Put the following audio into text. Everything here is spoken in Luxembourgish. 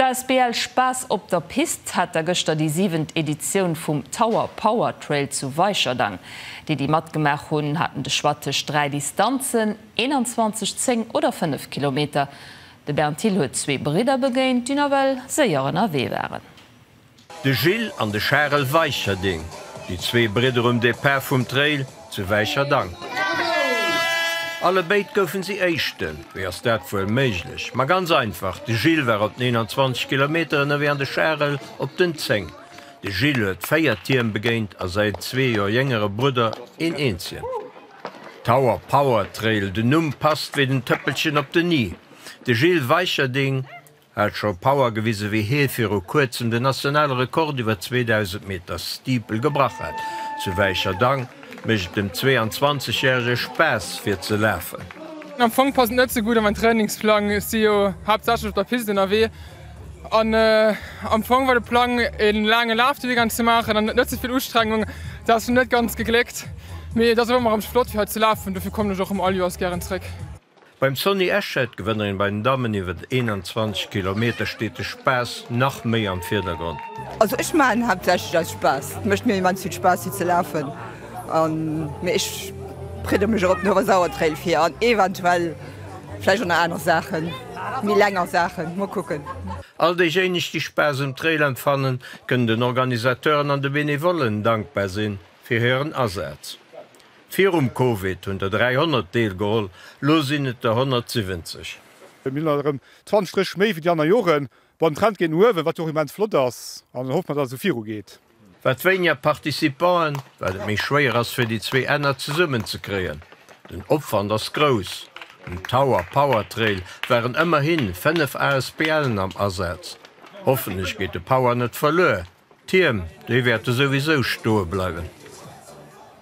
D'asbl Spaass op der Pist hat da gëschter déi siwent Editioun vum Tower Power Trail zu Weicherdang. Déi, déi matgemaach hunn, haten de Choix tëscht 3 Distanzen, 21, 10 oder 5 Kilometer. De Bernd Thill huet zwee Bridder begéint, déi nawell séier ënnerwee waren. De Gilles an de Charel Weicherding, déi zwee Bridder um Depart vum Trail zu Wäicherdang. Allebéid goufen si Éischten. Wéi ass dat wuel méiglech? Ma ganz einfach, de Gilles war op den 21 Kilometer ënnerwee an de Charel op den 10. De Gilles huet 4 Tierm begéint a säin zwee Joer jéngere Brudder een eenzegen. Tower Power Trail, den Numm passt wéi den Tëppelchen op den i. De Gilles Weicherding Hat scho Power gewise wéi hie viru kuerzem den nationale Rekord iwwer 2000 Meter Steeple gebrach hat. Zu Wäicherdang mécht et dem 22 järege Spaass fir ze lafen. Am Fong passt et net sou gutt an mäin Trainingsplang. Ech si jo haaptsächlech op der Pist ënnerwee an am Fong war de Plang een laange Laf de Weekend ze maachen an net ze vill Ustrengung. Dat ass net ganz gegléckt, mee et ass awer ëmmer erëm flott fir hei ze lafen, dofir kommen ech och erëm all Joers gären zréck. Beim Sonny Eschet, Gewënnerin bei den Dammen iwwer 21 Kilometer, steet de Spaass nach méi am Virdergrond. Also ech maachen haaptsächlech aus Spaass. Et mécht mir immens vill Spaass fir ze lafen an mee ech bereede mech och op den Oewersauer Trail vir an eventuell vläicht och nach aner Saachen, méi länger Saachen, mol kucken. All déijéineg déi Spaass um Trail empfannen, kënnen den Organisateuren an de Benevollen dankbar sinn fir hiren Asaz. Virum Covid hunn der 300 deelgeholl, lo sinn et der 170. Mir hunn alt erëm 20 Stréch méi wéi déi aner Joren. Bon, den Trend geet no uewen, wat jo och immens flott ass, an dann hoffe mer, datt et esou viru geet. Wat wéiniger Participanten, wat et méi schwéier ass fir déi zwee Enner zesummen ze kréien. Den Opwand ass grouss. Um Tower Power Trail waren ëmmerhi 5 ASBLen am Asaz. Hoffentlech geet de Power net verluer. D'Tierm, déi wäerte souwisou stoe bleiwen.